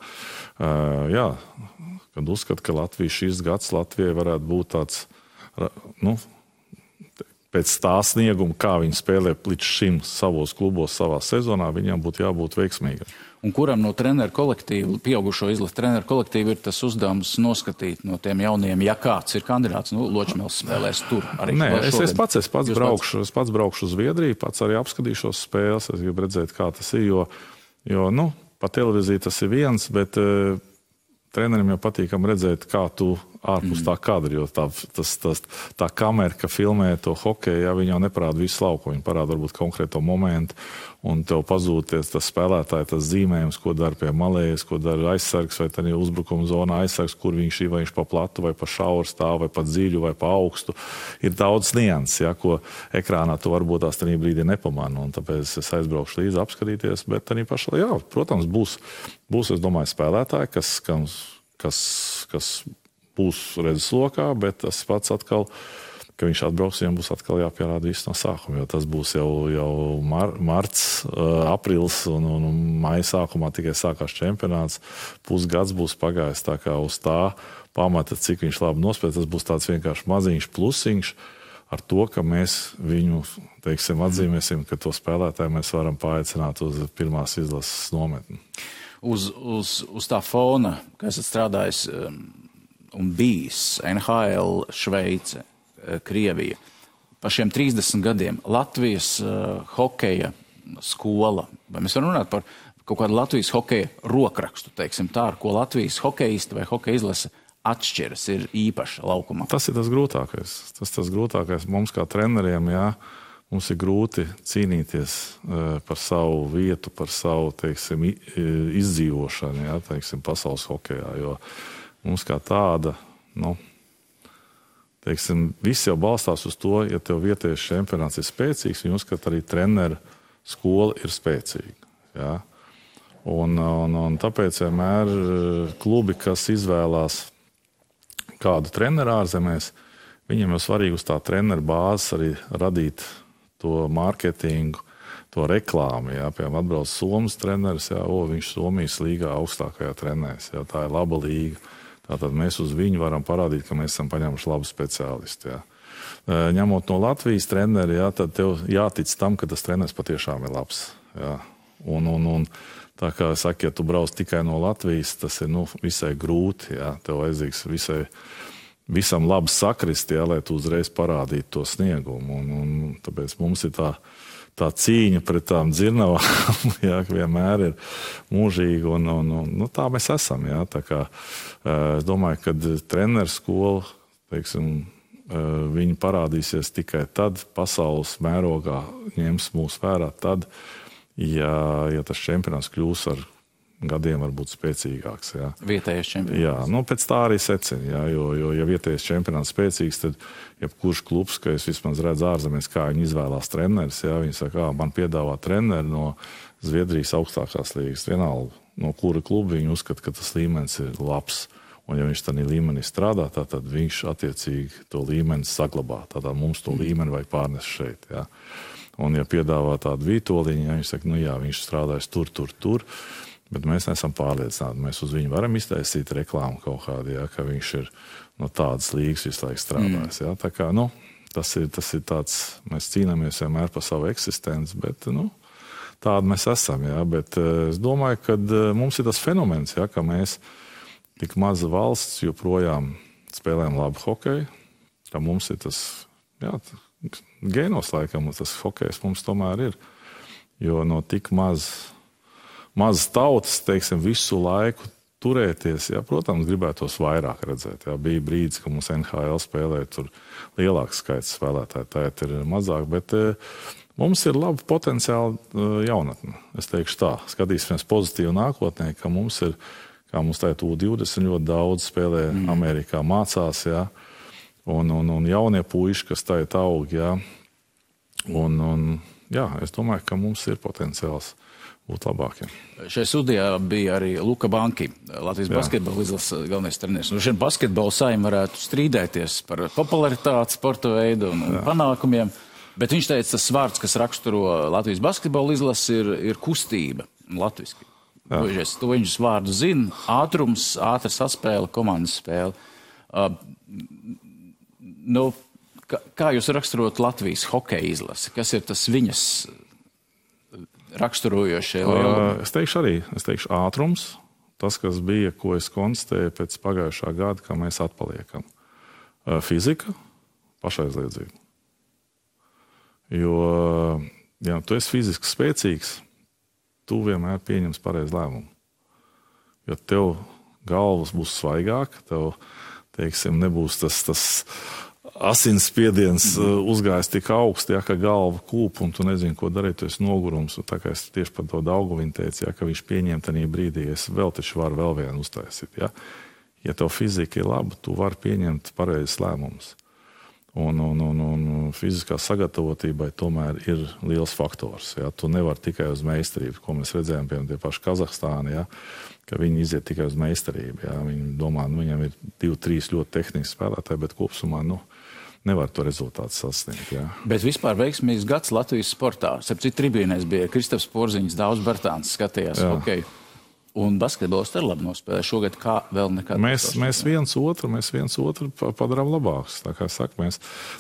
kad uzskata, ka šis gads Latvijai varētu būt tāds, pēc tā snieguma, kā viņi spēlē līdz šim savos klubos, savā sezonā, viņam būtu jābūt veiksmīgam. Un kuram no treneru kolektīvu, pieaugušo izlases treneru kolektīvu ir tas uzdevums noskatīt no tiem jauniem, ja kāds ir kandidāts, Ločmēls spēlēs tur arī? Nē, es pats braukšu uz Zviedriju, pats arī apskatīšos spēles, es gribu redzēt, kā tas ir, jo pa televīziju tas ir viens, bet trenerim jau patīkam redzēt, kā tu ārpus tā kadra, jo tā kamera, ka filmē to hokeju, viņa jau neparāda visu lauku, viņa parāda varbūt konkrēto momentu, un tev pazūties tas spēlētāji, tas zīmējums, ko dara pie malējas, ko dara aizsargs, vai tad uzbrukuma zonā aizsargs, kur viņš ir, vai viņš pa platu, vai pa šauru stāv, vai pa dziļu, vai pa augstu. Ir daudz nianses, ko ekrānā tu varbūt tās tajā brīdī nepamani, un tāpēc es aizbraukšu līdzi apskatīties, bet arī pašā, protams, būs, es domāju, spēlētāji, kas būs redzeslokā, bet tas pats atkal, ka viņš atbrauks, viņam būs atkal jāpierāda viss no sākuma, jo tas būs jau marts, aprils un maija sākumā tikai sākās čempionāts. Pusgads būs pagājis, tā kā uz tā pamata, cik viņš labi nospēlē, tas būs tāds vienkārši maziņš plusiņš ar to, ka mēs viņu, teiksim, atzīmēsim, ka to spēlētāju mēs varam paaicināt uz pirmās izlases nometni. Uz tā fona, ka esat strādājis un bijis NHL, Šveice, Krievija. Par šiem 30 gadiem Latvijas hokeja skola, vai mēs varam runāt par kaut kādu Latvijas hokeja rokrakstu, teiksim tā, ar ko Latvijas hokejisti vai hokeja izlase atšķiras, ir īpaša laukumā? Tas ir tas grūtākais. Tas grūtākais mums kā treneriem, mums ir grūti cīnīties par savu vietu, par savu, teiksim, izdzīvošanu, teiksim, pasaules hokejā, jo mums kā tāda, teiksim, viss jau balstās uz to, ja tev vietējais čempionāts ir spēcīgs, viņi uzskata arī treneru skola ir spēcīga. Ja? Un tāpēc vienmēr klubi, kas izvēlās kādu treneru ārzemēs, viņiem jau svarīgi uz tā treneru bāzes arī radīt to mārketingu, to reklāmu. Ja? Piemēram, atbrauc Somijas treneris, viņš Somijas līgā augstākajā trenēs. Ja? Tā ir laba līga. Tātad mēs uz viņu varam parādīt, ka mēs esam paņēmuši labu speciālistu. Ja. Ņemot no Latvijas treneri, tad tev jātic tam, ka tas treneris patiešām ir labs. Ja. Un tā kā saka, ja tu brauc tikai no Latvijas, tas ir visai grūti. Ja. Tev vajadzīgs visam labi sakrist, lai tu uzreiz parādītu to sniegumu. Un tāpēc mums ir tā cīņa pret tām dzirnavām, vienmēr ir mūžīga, un tā mēs esam. Tā kā, es domāju, ka treneru skola, teiksim, viņi parādīsies tikai tad, pasaules mērogā ņems mūs vērā tad, ja tas čempionāts kļūs ar gadiem var būt spēcīgāks. Jā. Vietējais čempionāts. Jā, nu pēc tā arī secina, jā, jo ja vietējais čempionāts spēcīgs, tad jebkurš klubs, ka es vismaz redzu ārzemēs, kā viņi izvēlās treneris, jā, viņi saka, man piedāvā treneri no Zviedrijas augstākās līgas, vienalga, no kura kluba viņi uzskata, ka tas līmenis ir labs. Un ja viņš tādā līmenī strādā, tad viņš attiecīgi to līmeni saglabā. Tātad mums to līmeni vajag pārnest šeit. Jā. Un ja piedāvā tādu vītoliņu, ja viņš saka, nu jā, viņš strādājas tur, bet mēs neesam pārliecināti. Mēs uz viņu varam iztaisīt reklāmu kaut kādu, jā, ka viņš ir no tādas līgas visu laiku strādājis. Jā. Tā kā, nu, tas ir tāds, mēs cīnāmies vienmēr par savu eksistenci, bet, nu, tādi mēs esam, jā. Bet es domāju, ka mums ir tas fenomens, jā, ka mēs tik maza valsts joprojām spēlējam labu hokeju, ka mums ir tas, jā, gēnos laikam, tas hokejs mums tomēr ir. Jo no tik maz tautas, teiksim, visu laiku turēties, jā, protams, gribētos vairāk redzēt. Jā. Bija brīdis, ka mums NHL spēlēja tur lielāks skaits spēlētāji, tā ir mazāk, bet mums ir laba potenciāla jaunatne. Es teikšu tā, skatīsimies pozitīvi nākotnē, ka mums ir kā mums tā U20 ļoti daudz spēlē Amerikā, mācās, jā, un jaunie puiši, kas tā aug, jā, un jā, es domāju, ka mums ir potenciāls būt labākiem. Šajā studijā bija arī Luka Banki, Latvijas basketbola izlases galvenais treneris. Šeit basketbola saima varētu strīdēties par popularitāti, sporta veidu un panākumiem, bet viņš teica, tas vārds, kas raksturo Latvijas basketbola izlasi, ir kustība latviski. To viņus vārdu zina, ātrums, ātra saspēle, komandas spēle. Kā jūs raksturot Latvijas hokeja izlasi? Kas ir tas viņas raksturojošie? Es teikšu ātrums, tas, kas bija, ko es konstatēju pēc pagājušā gada, ka mēs atpaliekam. Fizika, pašaizliedzība. Jo, ja tu esi fiziski spēcīgs, tu vienmēr pieņems pareizu lēmumu. Jo tev galvas būs svaigāk, tev, teiksim, nebūs tas asinsspiediens uzgājis tik augsti, ja, ka galva kūp un tu nezini, ko darīt, tu esi nogurums. Un tā kā es tieši par to Daugaviņu teicu, ja, ka viņš pieņem tajā brīdī, es vēl taču varu vēl vienu uztaisīt. Ja, ja tev fizika ir laba, tu vari pieņemt pareizes lēmumus. Un fiziskā sagatavotībai tomēr ir liels faktors. Ja? Tu nevari tikai uz meistarību, ko mēs redzējām, piemēram, tie paši Kazahstāni, ja? Ka viņi iziet tikai uz meistarību. Ja? Viņi domā, viņam ir 2-3 ļoti tehniski spēlētāji, bet kopsumā nevar to rezultātu sasniegt. Ja? Bet vispār veiksmīgs gads Latvijas sportā. Sapcīt tribīnēs bija Kristaps Porziņš, Daudz Bartāns skatījās hokeju. Un basketbols arī labi nospēlē šogad, kā vēl nekad. Mēs viens otru padarām labāks. Tā kā saka,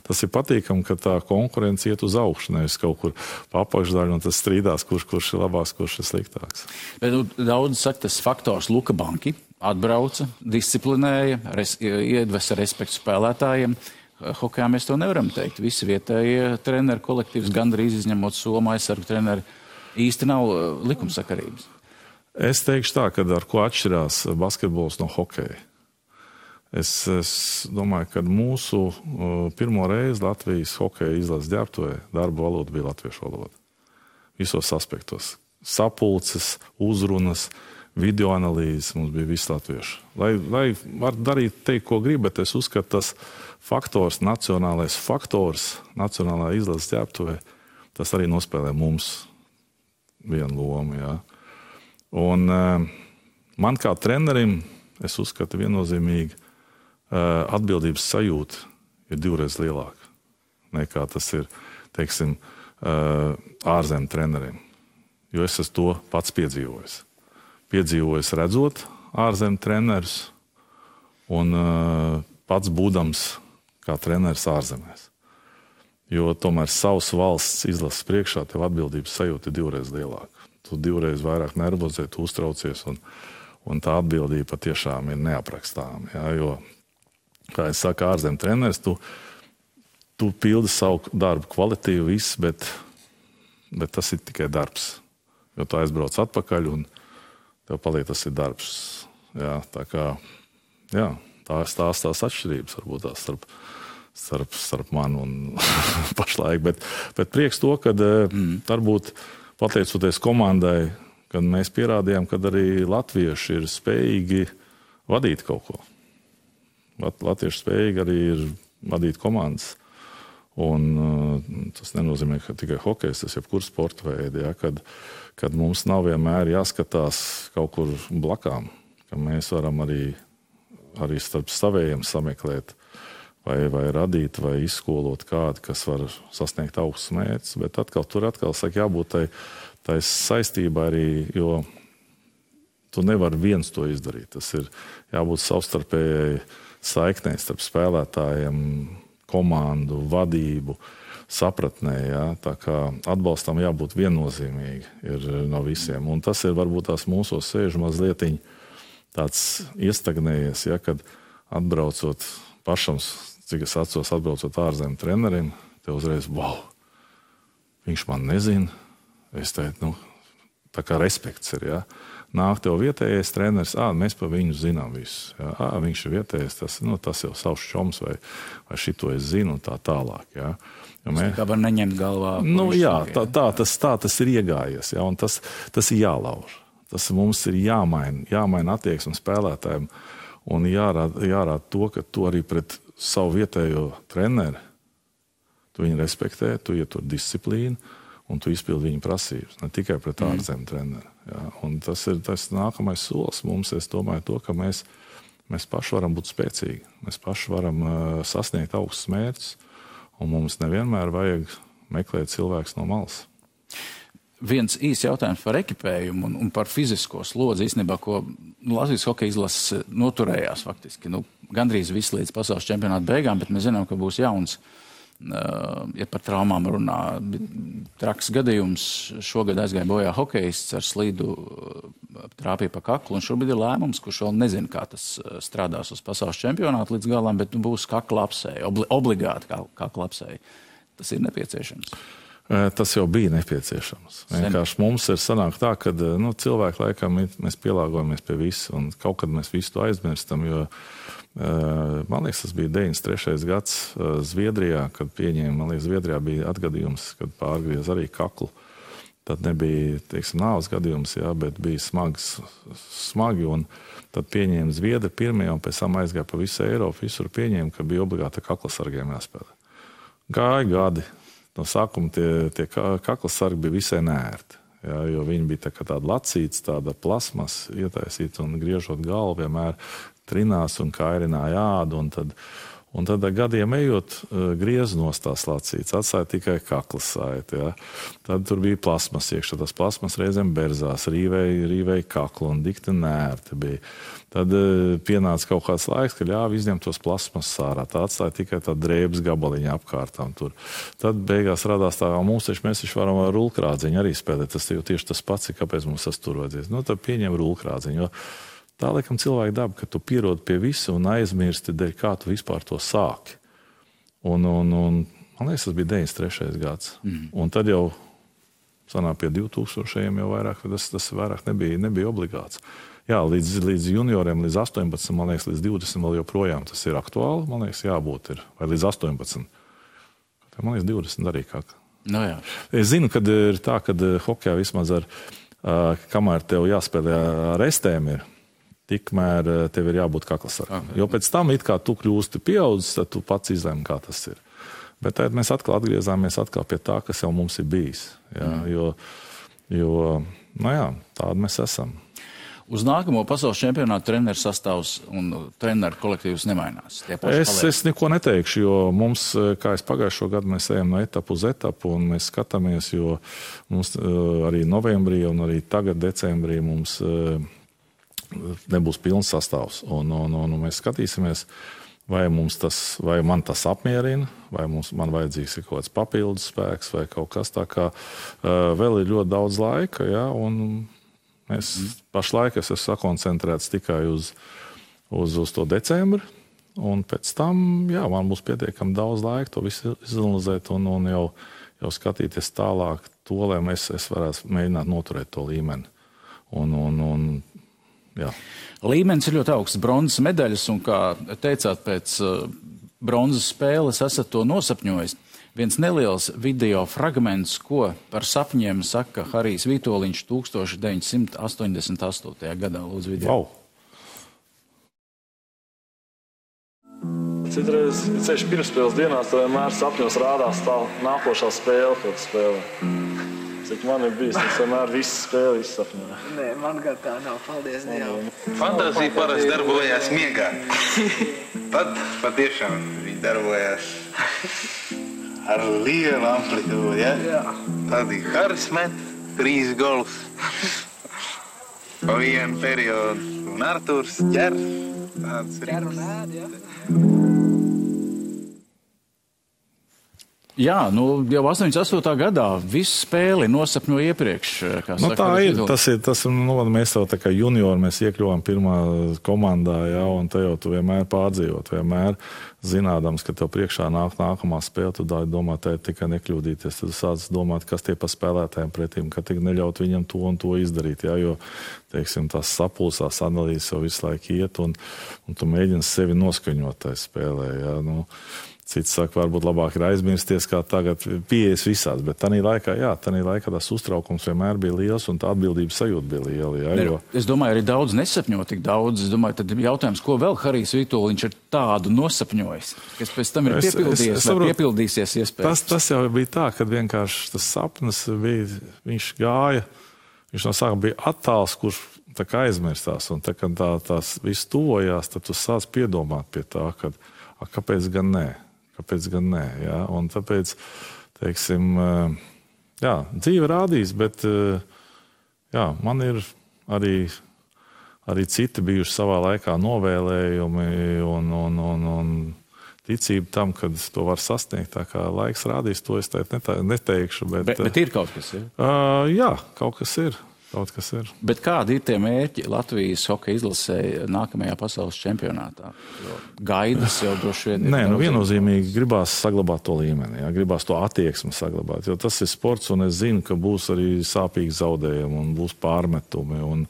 tas ir patīkami, ka tā konkurence iet uz augšu, nevis kaut kur pa apakšdaļu, un tas strīdās, kurš ir labāks, kurš ir sliktāks. Bet daudz saka, tas faktors Luka Banki atbrauca, disciplinēja, iedvesa respektu spēlētājiem. Hokejā mēs to nevaram teikt. Visi vietējie treneri kolektīvs, gandrīz izņemot Somu aizsargu treneri, īsti nav likumsakarības. Es teikšu tā, ka ar ko atšķirās basketbols no hokeja. Es domāju, ka mūsu pirmo reizi Latvijas hokeja izlases ģērbtuvē darba valoda bija latviešu valoda. Visos aspektos. Sapulces, uzrunas, video analīzes mums bija viss latviešu. Lai var darīt teikt, ko grib, bet es uzskatu, tas faktors, nacionālais faktors, nacionālā izlases ģērbtuvē, tas arī nospēlē mums vienu lomu, jā. Un man kā trenerim, es uzskatu viennozīmīgi, atbildības sajūta ir 2 reizes lielāka nekā tas ir, teiksim, ārzem treneriem. Jo es esmu to pats piedzīvojis. Piedzīvojis redzot ārzem trenerus un pats būdams kā treneris ārzemēs. Jo tomēr savas valsts izlases priekšā tev atbildības sajūta ir 2 reizes lielāka. Tu 2 reizes vairāk nervozē, tu uztraucies, un tā atbildība patiešām ir neaprakstāma. Ja? Jo, kā es saku, ārzem treneris, tu pildi savu darbu kvalitīvi viss, bet tas ir tikai darbs. Jo tu aizbrauc atpakaļ, un tev paliek tas ir darbs. Ja? Tā kā, jā, tās atšķirības varbūt tās starp mani un pašlaik. Bet prieks to, ka varbūt pateicoties komandai, kad mēs pierādījām, ka arī latvieši ir spējīgi vadīt kaut ko. Latvieši spējīgi arī ir vadīt komandas. Un tas nenozīmē, ka tikai hokejs, tas jebkur sporta veidi, ja, kad mums nav vienmēr jāskatās kaut kur blakām, ka mēs varam arī starp savējiem sameklēt vai radīt, vai izskolot kādu, kas var sasniegt augstus mērķus, bet tur saka, jābūt tai saistībā arī, jo tu nevari viens to izdarīt. Tas ir jābūt savstarpējai saiknei starp spēlētājiem, komandu, vadību, sapratnē. Ja? Tā kā atbalstam jābūt viennozīmīgi ir no visiem. Un tas ir varbūt tās mūsos sēž mazlietiņ tāds iestagnējies, ja? Kad atbraucot pašam, cik es atceros, atbraucot ārzemju trenerim, te uzreiz, wow, viņš man nezina. Es teicu, tā kā respekts ir, ja? Nāk tev vietējais treneris, mēs par viņu zinām visu. Ja? Viņš ir vietējais, tas jau savs čoms vai šito es zinu un tā tālāk. Ja? Tas kā var neņemt galvā. Jā, tā tas ir iegājies, ja? Un tas ir jālauž. Tas mums ir jāmaina attieksme spēlētājiem un jārāda to, ka tu arī pret savu vietējo treneri, tu viņu respektē, tu ietur disciplīnu un tu izpildi viņa prasības, ne tikai pret ārzemju treneri. Ja? Un tas ir nākamais solis mums, es domāju to, ka mēs paši varam būt spēcīgi, mēs paši varam sasniegt augstus mērķus, un mums nevienmēr vajag meklēt cilvēks no malas. Viens īs jautājums par ekipējumu un par fizisko slodzi, īstenībā, ko Latvijas hokeja izlases noturējās faktiski. Gandrīz viss līdz pasaules čempionāta beigām, bet mēs zinām, ka būs jauns. Ja par traumām runā, traks gadījums, šogad aizgāja bojā hokejists ar slīdu trāpīja pa kaklu, un šobrīd ir lēmums, kurš vēl nezina, kā tas strādās uz pasaules čempionātu līdz galam, bet būs kakla apsēja, obligāti kakla apsēja. Tas ir nepieciešams. Tas jau bija nepieciešams. Vienkārši mums ir sanāk tā, ka cilvēki laikam mēs pielāgojamies pie visu, un kaut kad mēs visu to aizmirstam, jo man liekas, tas bija 93. gads Zviedrijā, kad pieņēma, man liekas, Zviedrijā bija atgadījums, kad pārgriez arī kaklu. Tad nebija, nāves gadījums, jā, bet bija smagi, un tad pieņēma Zviedri pirmie, un pēc tam aizgāja pa visu Eiropu, visur pieņēma, ka bija obligāti kaklasargiem jāspēlē. Gāja gadi. No sākuma tie kaklasargi bija visai neērti, jā, jo viņi bija tāda lacīts, tāda plasmas ietaisīta un griežot galvu vienmēr trinās un kairināja ādu, un tad gadiem ejot griez nost tās lacītas, atstāja tikai kaklas saiti, jā. Tad tur bija plasmas iekšā, tas plasmas reizēm berzās, rīvēja kaklu un dikti nērti bija. Tad pienāca kaut kāds laiks, ka ļāva izņemt tos plasmas sārā, tā atstāja tikai tā drēbes gabaliņa apkārtām tur. Tad beigās radās tā, mēs taču varam ar rulkrādziņu arī spēlēt, tas jau tieši tas pats, kāpēc mums tas tur vajadzēs. Tad pieņem rulkrādziņu, jo tā laikam cilvēka daba, ka tu pierodi pie visu un aizmirsti, dēļ kā tu vispār to sāki. Un man liekas, tas bija 93. gads. Un tad jau sanāk pie 2000 jau vairāk, tas vairāk nebija obligāts. Jā, līdz junioriem, līdz 18, man liekas, līdz 20 vēl joprojām tas ir aktuāli, man liekas, jābūt ir, vai līdz 18. Man liekas, 20 arī kā. Jā. Es zinu, kad ir tā, kad hokejā vismaz kamēr tev jāspēlē ar estēm ir, tikmēr tev ir jābūt kaklasargam. Jo pēc tam, it kā tu kļūsti pieaudzis, tad tu pats izlēmi, kā tas ir. Bet tad mēs atkal atgriezāmies pie tā, kas jau mums ir bijis. Jā, jo tādi mēs esam. Uz nākamo pasaules čempionātu treneru sastāvs un treneru kolektīvs nemainās. Es neko neteikšu, jo mums, kā es pagājušo gadu, mēs ejam no etapu uz etapu un mēs skatāmies, jo mums arī novembrī un arī tagad decembrī mums nebūs pilns sastāvs. Un mēs skatīsimies, vai man tas apmierina, vai man vajadzīgs ir kaut kāds papildus spēks vai kaut kas tā kā. Vēl ir ļoti daudz laika, ja, un pašlaik es esmu sakoncentrēts tikai uz to decembri, un pēc tam, man būs pietiekami daudz laika to visu izanalizēt un jau skatīties tālāk to, lai es varētu mēģināt noturēt to līmeni. Līmenis ir ļoti augsts, bronzas medaļas, un kā teicāt, pēc bronzas spēles esat to nosapņojis. viens neliels video fragments, ko par sapņiem saka Harijs Vitoļņš 1988. gadā. Lūdzu, video. Wow. Citreiz, ceļš pirmspēles dienās, tev vienmēr sapņos rādās tā nākošā spēle, ko tu spēlē. Cik man ir bijis, es vienmēr visu spēli izsapņoju. Nē, man gan tā nav, paldies Dievam. Fantāzija parasti darbojās miegā. Tad patiešām viņi darbojās ar lielu amplitūdu, ja? Jā. Tad ir Haris met 3 golus pa vienu periodu, un Arturs ķer tāds Ķer un ēd, ja? Jā, nu jau 88. gadā visu spēli nosapņo iepriekš. Nu, tā ir. Tas, mēs jau tā kā juniori, mēs iekļuvām pirmā komandā, jā, un te jau tu vienmēr pārdzīvot, vienmēr zinādams, ka tev priekšā nāk nākamā spēle, tu domā, tā ir tikai nekļūdīties. Tad sāc domāt, kas tie pa spēlētājiem pretīm, ka tik neļaut viņam to un to izdarīt, jā, jo, teiksim, tās sapulsās analīzes jau visu laiku iet, un tu mēģini sevi noskaņot tajā spēlē, jā, nu. Cits saka, varbūt labāk ir aizmirsties, kā tagad pieejas visās, bet tanī laikā tas uztraukums vienmēr bija liels un tā atbildības sajūta bija liela. Jā, jo... Es domāju, arī daudz nesapņo tik daudz. Es domāju, tad jautājums, ko vēl Harijs Vitoļņš ir tādu nosapņojis, kas pēc tam ir piepildījies vai piepildīsies iespējams. Tas jau bija tā, kad vienkārši tas sapnis bija, viņš gāja, viņš no sākuma bija attāls, kurš tā kā aizmirstās, un tā, kad tās viss tuvojās, tad tu sāc piedomāt pie tā, kad, kāpēc gan nē? Kāpēc gan nē, jā, un tāpēc, teiksim, jā, dzīve rādīs, bet, jā, man ir arī citi bijuši savā laikā novēlējumi un ticība tam, kad to var sasniegt, tā kā laiks rādīs, to es neteikšu, bet ir kaut kas, ja? Jā, kaut kas ir. Bet kādi ir tie mērķi Latvijas hokeja izlasē nākamajā pasaules čempionātā? Jo gaidas jau droši vien ir. Nē, viennozīmīgi gribās saglabāt to līmeni, jā, gribās to attieksmi saglabāt, jo tas ir sports, un es zinu, ka būs arī sāpīgi zaudējumi, un būs pārmetumi, un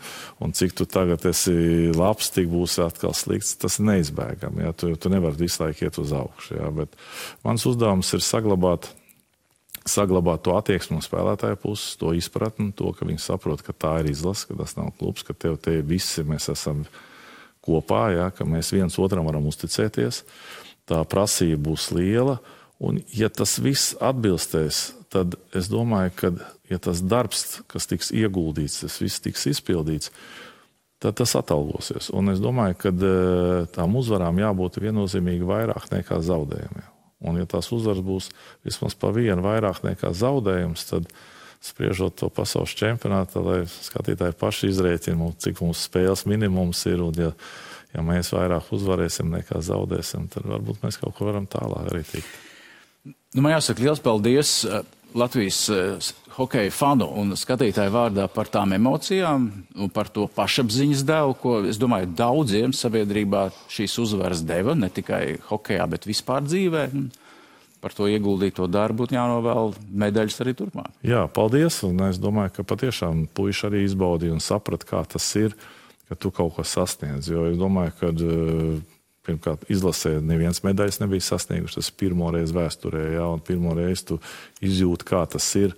cik tu tagad esi labs, tik būs atkal slikts, tas ir neizbēgami, jā, tu nevari visu laiku iet uz augšu, jā, bet mans uzdevums ir saglabāt to attieksmi no spēlētāja puses, to izpratni, to, ka viņi saprot, ka tā ir izlase, ka tas nav klubs, ka tev te visi mēs esam kopā, ja, ka mēs viens otram varam uzticēties, tā prasība būs liela, un ja tas viss atbilstēs, tad es domāju, ka ja tas darbs, kas tiks ieguldīts, tas viss tiks izpildīts, tad tas atalgosies. Un es domāju, ka tām uzvarām jābūt viennozīmīgi vairāk nekā zaudējumiem. Un ja tās uzvaras būs vismaz pa vienu vairāk nekā zaudējums, tad spriežot to pasaules čempionātu, lai skatītāji paši izrēķina, cik mums spēles minimums ir, un ja mēs vairāk uzvarēsim nekā zaudēsim, tad varbūt mēs kaut ko varam tālāk arī tikt. Nu, man jāsaka liels paldies Latvijas hokeja fanu un skatītāju vārdā par tām emocijām un par to pašapziņas devu, ko, es domāju, daudziem sabiedrībā šīs uzvaras deva, ne tikai hokejā, bet vispār dzīvē. Par to ieguldīto darbu būtu jānovēl medaļas arī turpmāk. Jā, paldies, un es domāju, ka patiešām puiši arī izbaudīja un saprat, kā tas ir, ka tu kaut ko sasniedz, jo es domāju, ka pirmkārt, izlasē neviens medaļas nebija sasnieguši, tas pirmoreiz vēsturē, jā, un pirmoreiz tu izjūti, kā tas ir,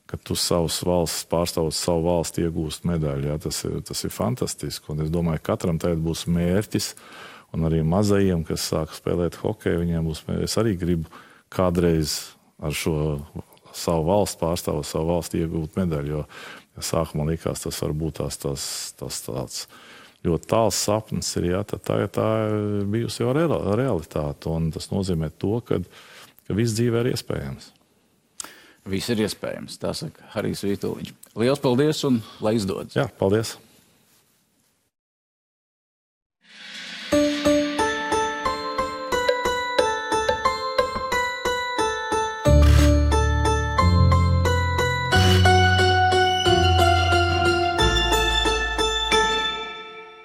ka tu savus valsts, pārstāvot savu valsti iegūst medaļu, jā, tas ir fantastiski, un es domāju, katram tagad būs mērķis, un arī mazajiem, kas sāk spēlēt hokeju, viņiem būs mērķis, es arī gribu kādreiz ar šo savu valsts pārstāvot savu valsti iegūt medaļu, jo sākumā likās, tas var būt tāds ļoti tāls sapnis ir, jā, tad tagad tā ir bijusi jau realitāte, un tas nozīmē to, ka viss dzīvē ir iespējams. Viss ir iespējams, tā saka Harijs Vitoļņš. Liels paldies un lai izdodas. Jā, paldies.